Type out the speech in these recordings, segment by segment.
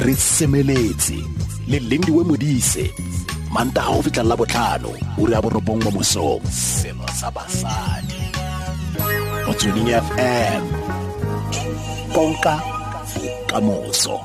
Re semeletse le Lindiwe Modise, Mantaga go fitlha la botlhano, ura ya 9 mo mosong. Selo sa basadi. Motsweding FM. Konka bokamoso.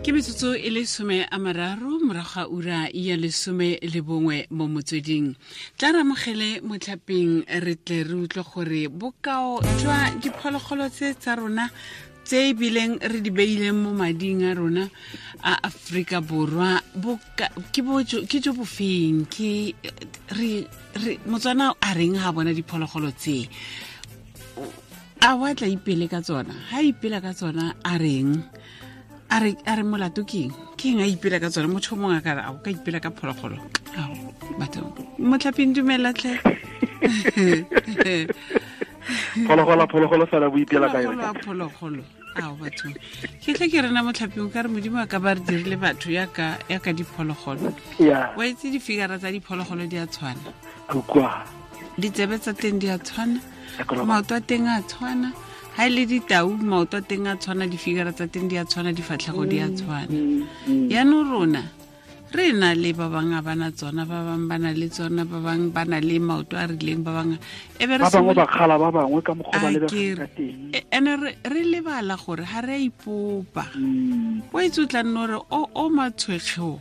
Ke metsotso e le 30 morago ga ura ya 11 mo motsweding. Tla re amogele motlhapeng re tle re utlwe gore bokao jwa diphologolo tse tsa rona tse ebileng re di beileng mo mading a rona a Aforika Borwa ke jo bofeng, ke re Motswana a reng ha bona diphologolo tse, a wa tla ipele ka tsona, ha ipela ka tsona a reng, a re molato keng, keng a ipela ka tsona, motho mongwe a ka re a o ka ipela ka phologolo. Ao batho motlhapeng dumela tlhe. Phologolo fela bo ipela ka yone. Phologolo. Ao batho. Ke tle ke rena motlhapeng ka re Modimo a ka ba re dirile batho ya ka diphologolo. Yeah. Wa itse difigara tsa diphologolo di a tshwana. Kwa. Ditsebe tsa teng di a tshwana. Maoto a teng a tshwana. Ha ile ditau maoto a teng a tshwana, difigara tsa teng di a tshwana, difatlhego di a tshwana. Yaanong rona re na le ba bangwe ba na tsona, ba bangwe ba na le tsona, ba bangwe ba na le maoto a rileng, ba bangwe e be re ba bangwe ba kgala ba bangwe ka mokgwa ba lebegang ka teng. Ene re lebala gore ha re a ipopa. O itse o tla nna gore o matshwekgeo.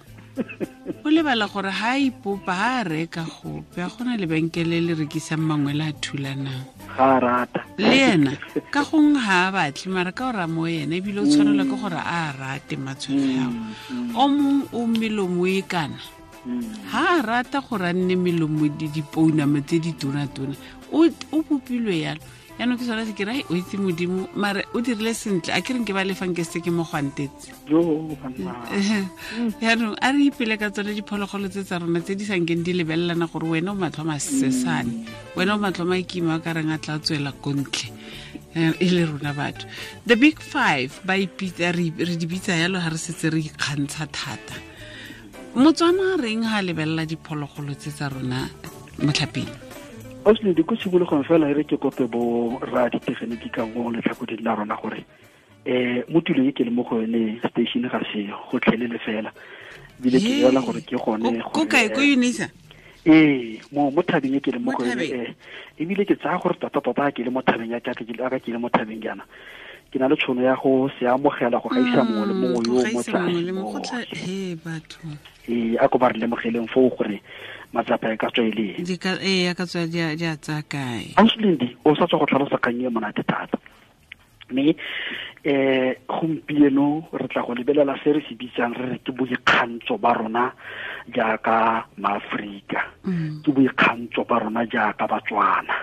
O lebala gore ha a ipopa, ha a reka gope, a gona lebenkele le rekisang mangwe le a thulanang. Ga a rata. Le ena ka gongwe ga a batle, mara ka ora mo ena ebile o tshwanelwa ke gore a rate matshwekge ao. O mongwe o melomo e kana. Ha a rata gore a nne melomo dipounama tse di tona-tona, o bopilwe yalo. Yaanong ke sone se ke re o itse Modimo, mare o dirile sentle, a ke reng ke ba lefang ke se ke mo gwantetse. Yaanong a re ipele ka tsone diphologolo tse tsa rona tse di sa nkeng di lebelelana gore wena o matlho masesane, wena o matlho makima a ka reng a tla tswela ko ntle, e le rona batho. The big five ba ipitsa, re di bitsa yalo ha re setse re ikgantsha thata. Motswana a reng ha lebelela diphologolo tse tsa rona motlhapeng? Osle di ko tshimologong fela e re ke kope bo ra ditegeniki ka mo letlhakoding la rona gore mo tulong e ke le mo go yone station ga se gotlhelele fela, ebile ke bolela gore ke gone ko kae, ko Unisa? Ee, mo thabeng e ke le mo go yone, ebile ke tsaya gore tota-tota ke le mo thabeng ya ka, ke le mo thabeng jaana, ke na le tšhono ya go se amogela go gaisa mongwe le mongwe yo mo tlase. Batho. Ee, a ko ba re lemogeleng foo gore matsapa e ka tswa e le eng. Ee, a ka tswa di a tsaya kae. Ausi o sa tswa go tlhalosa kgang e monate thata. Mme gompieno re tla go lebelela se re se bitsang re re ke boikgantsho ba rona jaaka maAforika, ke boikgantsho ba rona jaaka Batswana.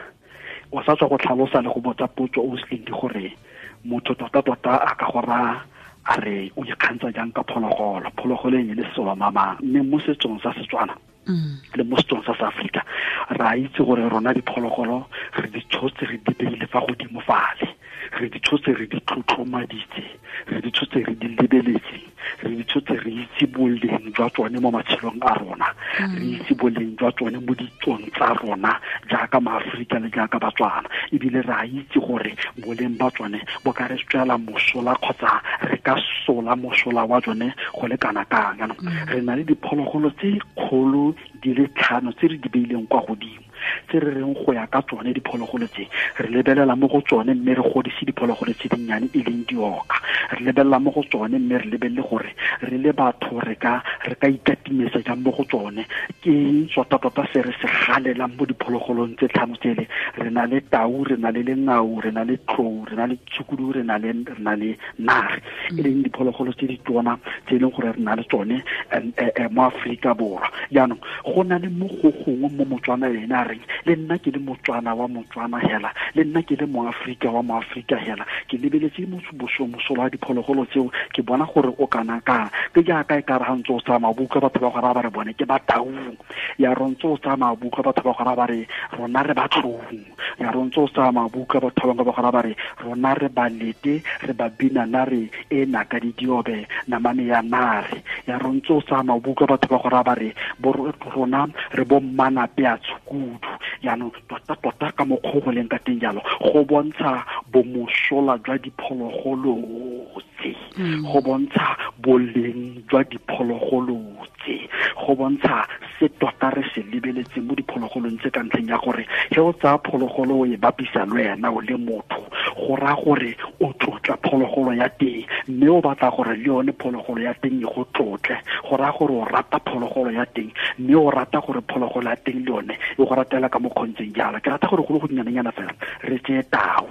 O sa tswa go tlhalosa le go botsa potso Ausi gore motho tota-tota a ka go raya a re o ikgantsha jang ka phologolo, phologolo e le selo mamang, mme mo setsong sa Setswana le mo setsong sa Afrika re a itse gore rona diphologolo re di tshotse re di beile fa godimo fale, re di tshotse re di tlotlomaditse, re di tshotse re di lebeletse, re di tshotse re itse boleng jwa tsone mo matshelong a rona, re itse boleng jwa tsone mo ditsong tsa rona jaaka maAforika le jaaka Batswana, ebile re a itse gore boleng ba tsone bo ka re tswela mosola kgotsa re ka sola mosola wa tsone go le kana kang. Jaanong re na le diphologolo tse kgolo di le 5 tse re di beileng kwa godimo, tse re reng go ya ka tsone diphologolo tse re lebelela mo go tsone mme re godise diphologolo tse dinnyane e leng dioka, re lebelela mo go tsone mme re lebelele gore re le batho re ka ikatimetsa jang mo go tsone. Ke eng tota-tota se re se galelang mo diphologolong tse 5 tsele? Re na le tau, re na le lengau, re na le tlou, re na le tshukudu, re na le nare, e leng diphologolo tse di tona tse e leng gore re na le tsone mo Aforika Borwa. Jaanong go na le mo go gongwe mo Motswana ene a reng le nna ke le Motswana wa Motswana hela, le nna ke le Moaforika wa Moaforika hela, ke lebeletse mosola wa diphologolo tseo, ke bona gore o kana kang. Ke jaaka e ka re ga ntse o tsamaya buka batho ba go raya ba re bone ke ba taung, ya re ntse o tsamaya buka batho ba go raya ba re rona re ba tlou, Ya rontse o sa mabuka batho ba bangwe ba gora ba re rona re balete re ba bina nare e naka di diobe namane ya nare. Ya rontse o sa mabuka batho ba gora ba re rona re bo mmana pea tshukudu. Jaanong tota-tota ka mokgwa go leng ka teng jalo go bontsha bomosola jwa diphologolo tse, go bontsha boleng jwa diphologolo tse, go bontsha se tota re se lebeletseng mo diphologolong tse, ka ntlheng ya gore ge o tsaya phologolo o e bapisa le wena o le motho, go raya gore o tlotla phologolo ya teng, mme o batla gore le yone phologolo ya teng e go tlotle. Go raya gore o rata phologolo ya teng, mme o rata gore phologolo ya teng le yone e go ratela ka mokgontseng jalo. Ke rata gore go le go dinyanenyana fela re tseye tau.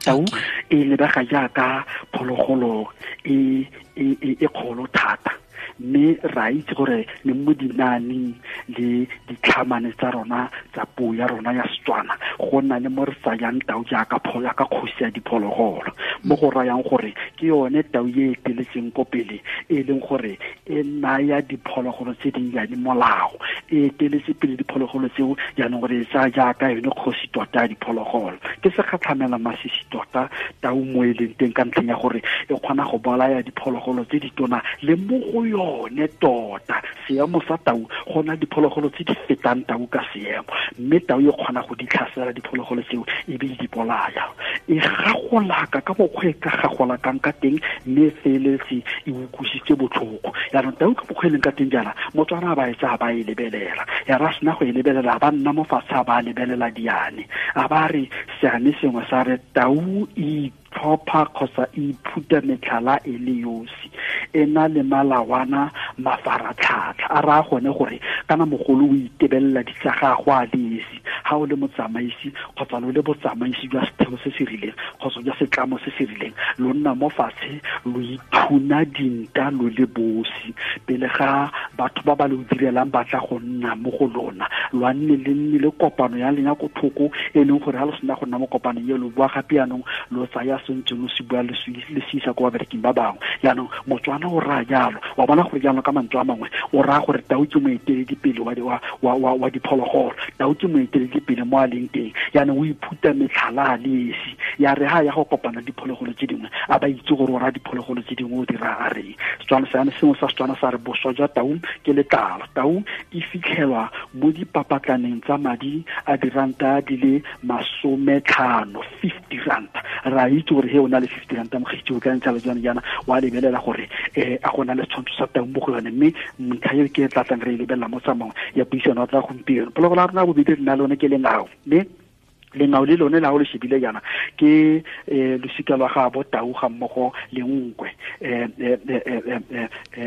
Tau e lebega jaaka phologolo e e kgolo thata, mme ra itse gore le mo dinaaneng le ditlhamane tsa rona tsa puo ya rona ya Setswana go na le mo re tsayang tau jaaka jaaka kgosi ya diphologolo, mo go rayang gore ke yone tau e eteletseng ko pele, e leng gore e naya diphologolo tse dinnyane molao, e eteletse pele diphologolo tseo jaanong gore e tsaya jaaka yone kgosi tota ya diphologolo. Ke segatlhamela masisi tota tau mo e leng teng, ka ntlheng ya gore e kgona go bolaya diphologolo tse ditona le mo go yone tota seemo sa tau go na diphologolo tse di fetang tau ka seemo, mme tau e kgona go di tlhasela diphologolo tseo e be di bolaya. E gagolaka ka mokgwa e ka gagolakang ka teng, mme e feletse e utlwisitse botlhoko. Jaanong tau ka mokgwa e leng ka teng jaana, Motswana ba e tsaya ba e lebelela, ya ra sena go e lebelela ba nna mo fatshe a ba lebelela diane, a ba re seane sengwe sa re tau e tlhopha kgotsa e iphuta metlhala e le yosi, e na le malawana mafaratlhatlha. A raya gone gore kana mogolo o itebelela di tsa gagwe a le esi, ga o le motsamaisi kgotsa lo le botsamaisi jwa setheo se se rileng kgotsa jwa setlamo se se rileng, lo nna mo fatshe lo ithuna dinta lo le bosi pele ga batho ba ba lo direlang ba tla go nna mo go lona. Lo a nne le nne le kopano ya lena ko thoko, e leng gore ga lo sena go nna mo kopanong e lo bua gape jaanong lo tsaya sentse lo se bua le se isa ko babereking ba bangwe. Jaanong Motswana o raya jalo, wa bona gore jaanong ka mantswe a mangwe o raya gore tau ke moeteledipele wa diphologolo, tau ke moeteledipele mo a leng teng. Jaanong o iphuta metlhala a le esi, ya re ha ya go kopana diphologolo tse dingwe a ba itse gore o raya diphologolo tse dingwe o di raya a reng. Setswana seane sengwe sa Setswana sa re boswa jwa tau ke letlalo. Tau e fitlhelwa mo dipapatlaneng tsa madi a diranta di le 50, 50 ranta. Ra itse gore he o na le 50 ranta mokgetsi o ka ntsha le jana jana wa lebelela gore a gona le setshwantsho sa tau mo go yone, mme ntlha eo ke e tla tlang re e lebelela mo tsamaong ya puisano tsa gompieno. Phologolo ya rona bobedi re na le yone ke lengao, mme lengao le lone la o le shebile jaana ke losika lwa gabo tau ga mmogo le nkwe,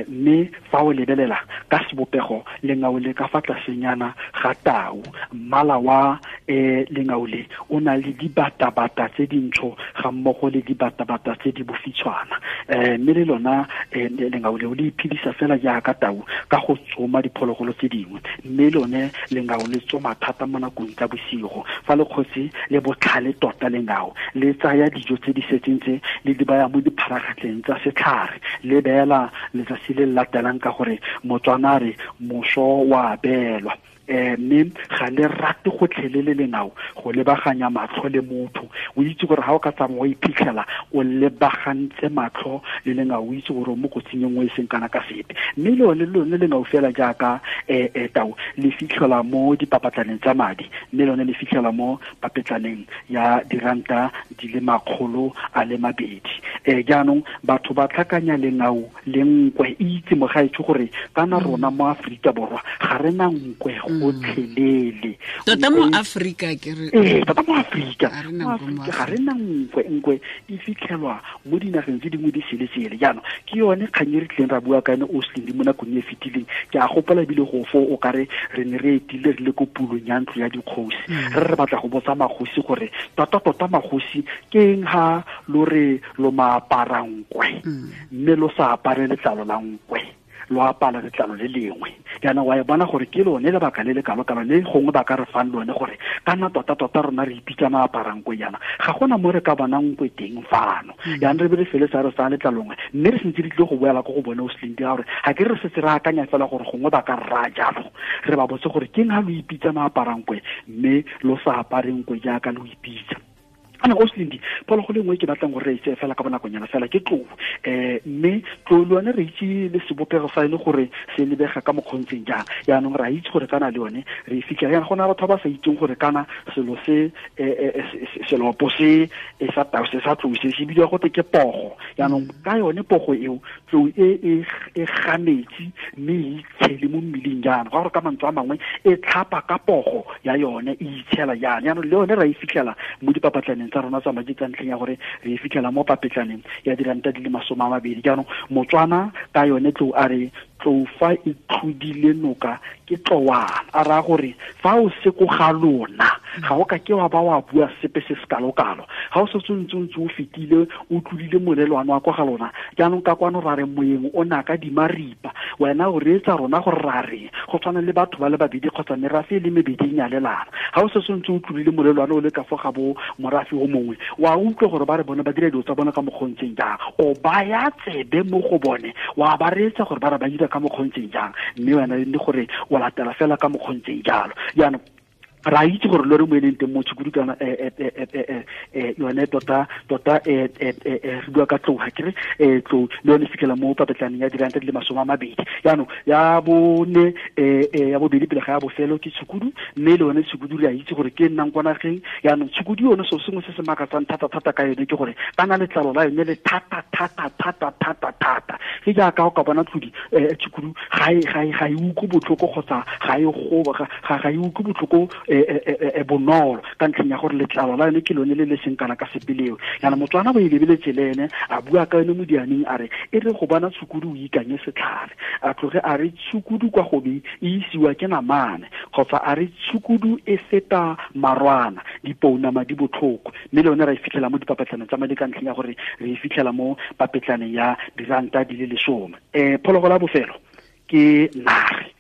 mme fa o lebelela ka sebopego lengao le ka fa tlasenyana ga tau, mmala wa lengao le o na le dibatabata tse dintsho ga mmogo le dibatabata tse di bofitshwana, mme le lona lengao leo le iphedisa fela jaaka tau ka go tsoma diphologolo tse dingwe, mme lone lengao le tsoma thata mo nakong tsa bosigo. Fa le kgosi le botlhale tota lengao le tsaya dijo tse di setseng tse le di baya mo dipharagatleng tsa setlhare, le beela letsatsi le latelang ka gore Motswana re moso wa beelwa. Mme ga le rate gotlhelele lengao go lebaganya matlho le motho. O itse gore ga o ka tsamaya o iphitlhela o lebagantse matlho le lengao, o itse gore o mo kotsing e nngwe e seng kana ka sepe. Mme le lone lengao fela jaaka tau le fitlhelwa mo dipapatlaneng tsa madi, mme lone le fitlhelwa mo papetlaneng ya diranta di le 200. Jaanong batho ba tlhakanya lengao le nkwe. Itse mogaetsho gore kana rona mo Aforika Borwa ga re na nkwe gotlhelele. Tota mo Afrika ke re tota mo Afrika ga re na nkwe. Nkwe e fitlhelwa mo dinageng tse dingwe di sele-sele. Jaanong ke yone kgang e re tlileng ra bua ka yone o Slindi mo nakong e fetileng. Ke a gopola ebile go fo o kare re ne re etile re le ko pulong ya ntlo ya dikgosi, re batla go botsa magosi gore tota-tota magosi ke eng ha lo re lo maapara nkwe mme lo sa apare letlalo la nkwe. lo apala letlalo le lengwe. Jaanong wa e bona gore ke lone lebaka le le kalo-kalo le gongwe ba ka re fang lone gore kana tota-tota rona re ipitsa maaparang-nkwe jaana, ga gona mo re ka bonang nkwe teng fano. Jaanong re be re fele sa re sa letlalongwe, mme re sentse re tlile go boela ko go bone o Slindi, gore ga ke re setse re akanya fela gore gongwe ba ka rra jalo, re ba botse gore keng ha lo ipitsa maaparang-nkwe mme lo sa apareng nkwe jaaka lo ipitsa. Ana o Slindi, phologolo nngwe ke batlang gore re itse fela ka bonakonyana fela ke tlou. Mme tlou le yone re itse le sebopego sa ene gore se lebega ka mokgontseng jang. Jaanong re a itse gore kana le yone re e fitlhela jaana, go na batho ba ba sa itseng gore kana selo se selopo se sa tau se sa tlou se se bidiwa gote ke pogo. Jaanong ka yone pogo eo, tlou e ga metsi mme e itshele mo mmeleng jaana, go gore ka mantswe a mangwe e tlhapa ka pogo ya yone e itshela jaana. Jaanong le yone ra e fitlhela mo dipapatlaneng tsa rona tsa madi ka ntlheng ya gore re e fitlhela mo papetlaneng ya diranta di le 20. Jaanong Motswana ka yone tlou a re tlou fa e tlhodile noka ke tlowana, a raya gore fa o se ko ga lona ga o ka ke wa ba wa bua sepe se se kalo-kalo, ga o setse o ntse o fetile o tlodile molelwane wa kwa ga lona. Jaanong ka kwano ra re moyeng o naka dimaripa, wena o reetsa rona gore ra reng, go tshwana le batho ba le babedi kgotsa merafe e le mebedi e nyalelana. Ga o setse o ntse o tlodile molelwane o le ka fo ga bo morafe o mongwe, wa utlwa gore ba re bone ba dira dilo tsa bone ka mokgontseng jang, o baya tsebe mo go bone wa ba reetsa gore ba re ba dira ka mokgontseng jang, mme wena le gore o latela fela ka mokgontseng jalo. Jaanong ra itse gore lore mo e leng teng mo tshukudu kana yone tota tota re bua ka tlou, ga ke re tlou le yone fitlhela mo papetlaneng ya diranta di le 20. Jaanong ya bone ya bobedi pele ga ya bofelo ke tshukudu, mme le yone tshukudu re a itse gore ke nnang kwa nageng. Jaanong tshukudu yone selo sengwe se se makatsang thata-thata ka yone ke gore kana letlalo la yone le thata thata thata thata thata, ke jaaka o ka bona tlodi tshukudu ga e utlwe botlhoko kgotsa ga e goba ga e utlwe botlhoko bonolo ka ntlheng ya gore letlalo la yone ke lone le le seng kana ka sepeleo. Jaanong Motswana bo e lebeletse le ene a bua ka yone mo dianeng a re e re go bona tshukudu o ikanye setlhare, a tloge a re tshukudu kwa gobe e isiwa ke namane, kgotsa a re tshukudu e feta marwana dipounama di botlhoko. Mme le yone ra e fitlhela mo dipapetlaneng tsa madi ka ntlheng ya gore re e fitlhela mo papetlaneng ya diranta di le 10. Phologolo ya bofelo ke nare,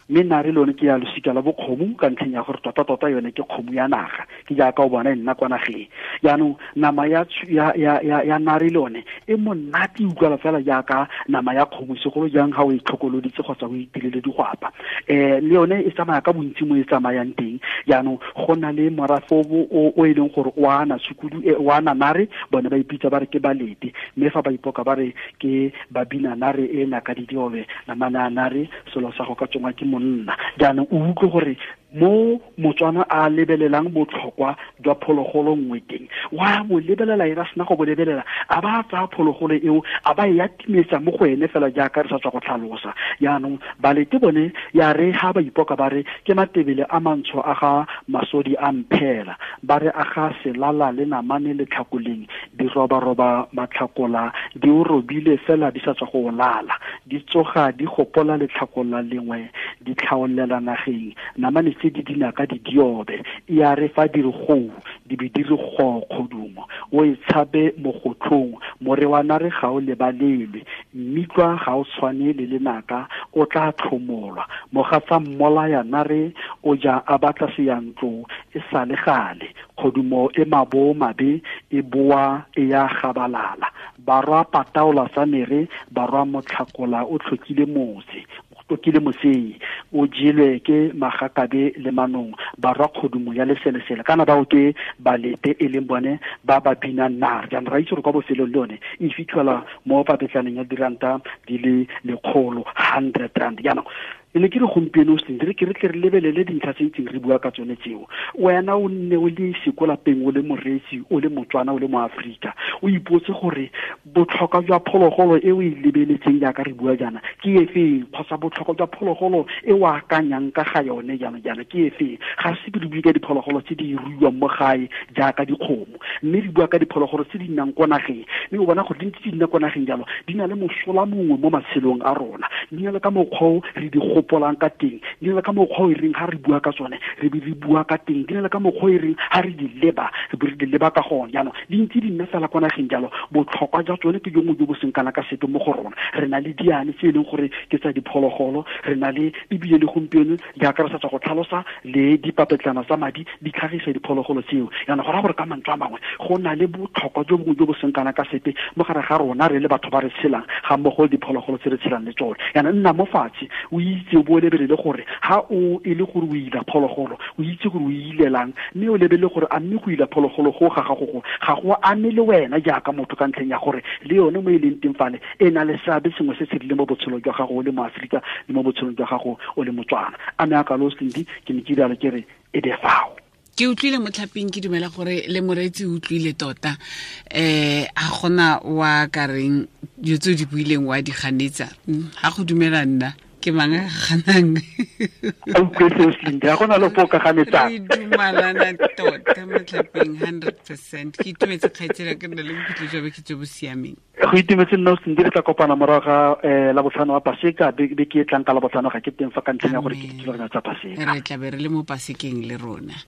mme nare le yone ke ya losika la bokgomo ka ntlheng ya gore tota-tota yone ke kgomo ya naga, ke jaaka o bona e nna kwa nageng. Jaanong nama ya nare le yone e monate e utlwala fela jaaka nama ya kgomo, segolo jang ga o e tlhokoloditse kgotsa o itirele digwapa. Le yone e tsamaya ka bontsi mo e tsamayang teng. Jaanong go na le morafe o e leng gore o ana tshukudu o ana nare, bone ba ipitsa ba re ke balete, mme fa ba ipoka ba re ke babina nare e naka di diobe namana nare selo sa go ka tsongwa ke monna. Jaanong o utlwe gore mo Motswana a lebelelang botlhokwa jwa phologolo nngwe teng, wa bo lebelela e ra sena go bo lebelela, a ba tsaya phologolo eo a ba e atimetsa mo go ene fela jaaka re sa tswa go tlhalosa. Jaanong balete bone ya re ha ba ipoka ba re ke matebele a mantsho a ga masodi a mphela, ba re a ga selala le namane le tlhakoleng, di robaroba matlhakola di o robile fela di sa tswa go lala, di tsoga di gopola letlhakola lengwe di tlhaolela nageng, namane tse di dinaka di diobe, ya re fa di re gou di be di re go kgodumo, o e tshabe mogotlhong more wa nare ga o lebalelwe, mmitlwa ga o tshwane le lenaka o tla tlhomolwa, mogatsa mmolaya nare o ja a batla seyantlo e sa le gale, kgodumo e mabo mabe e boa e ya gabalala, barwa pataola sa mere barwa motlhakola o tlhokile motse tokile mosei o jelwe ke magakabe le manong barwa kgodumo ya leselesele, kana bao ke balete e leng bone ba ba binang nare. Jaanong ra itse gore kwa bofelong le yone e fitlhela mo papetlaneng ya diranta di le 100 rand. Jaanong ne ke re gompieno re ke re tle re lebelele dintlha tse itseng re bua ka tsone tseo, wena o nne o le sekolapeng o le moreetsi o le Motswana o le moAforika, o ipotse gore botlhokwa jwa phologolo e o e lebeletseng jaaka re bua jaana ke efeng, kgotsa botlhokwa jwa phologolo e o akanyang ka ga yone jaana jaana ke efeng. Ga se re bue ka diphologolo tse di ruiwang mo gae jaaka dikgomo, mme re bua ka diphologolo tse di nnang kwa nageng, mme o bona gore di ntse di nna kwa nageng jalo di na le mosola mongwe mo matshelong a rona, di na le ka mokgwa o re di gopolang ka teng, di na le ka mokgwa o e reng ga re bua ka tsone re be re bua ka teng, di na le ka mokgwa o e reng ga re di leba re be re di leba ka gone. Jaanong di ntse di nna fela kwa nageng jalo, botlhokwa jwa tsone ke jongwe jo bo seng kana ka sepe mo go rona. Re na le diane tse e leng gore ke tsa diphologolo, re na le ebile le gompieno jaaka re sa tswa go tlhalosa le dipapetlana tsa madi di tlhagisa diphologolo tseo. Jaanong go raya gore ka mantswe a mangwe go na le botlhokwa jo bongwe jo bo seng kana ka sepe mo gare ga rona re le batho ba re tshelang ga mmogo le diphologolo tse re tshelang le tsone. Jaanong nna mo fatshe o itse o bo o lebelele gore ha o e le gore o ila phologolo, o itse gore o ilelang, mme o lebelele gore a mme go ila phologolo go ga gago go ga go ame le wena jaaka motho, ka ntlheng ya gore le yone mo e leng teng fale e na le seabe sengwe se se rileng mo botshelong jwa gago o le moaforika le mo botshelong jwa gago o le Motswana. A me a kalo Slindi, ke ne ke rialo ke re e be fao. Ke utlwile motlhaping, ke dumela gore le moreetsi o utlwile tota. A gona wa ka reng dilo tse o di buileng wa di ganetsa? Ga go dumela nna ke mang a ganang? A utlwe seo Slindi, ga gona le po ka ganetsang. Re dumalana tota motlhaping 100%. Ke itumetse kgaitsela, ke nna le bokhutlo jwa beke jo bo siameng. Go itumetse nna Slindi, re tla kopana morago ga labotlhano wa Paseka, beke e tlang ka labotlhano ga ke teng fa ka ntlheng ya gore ke dithulaganyo tsa Paseka. Re tla be re le mo Pasekeng le rona.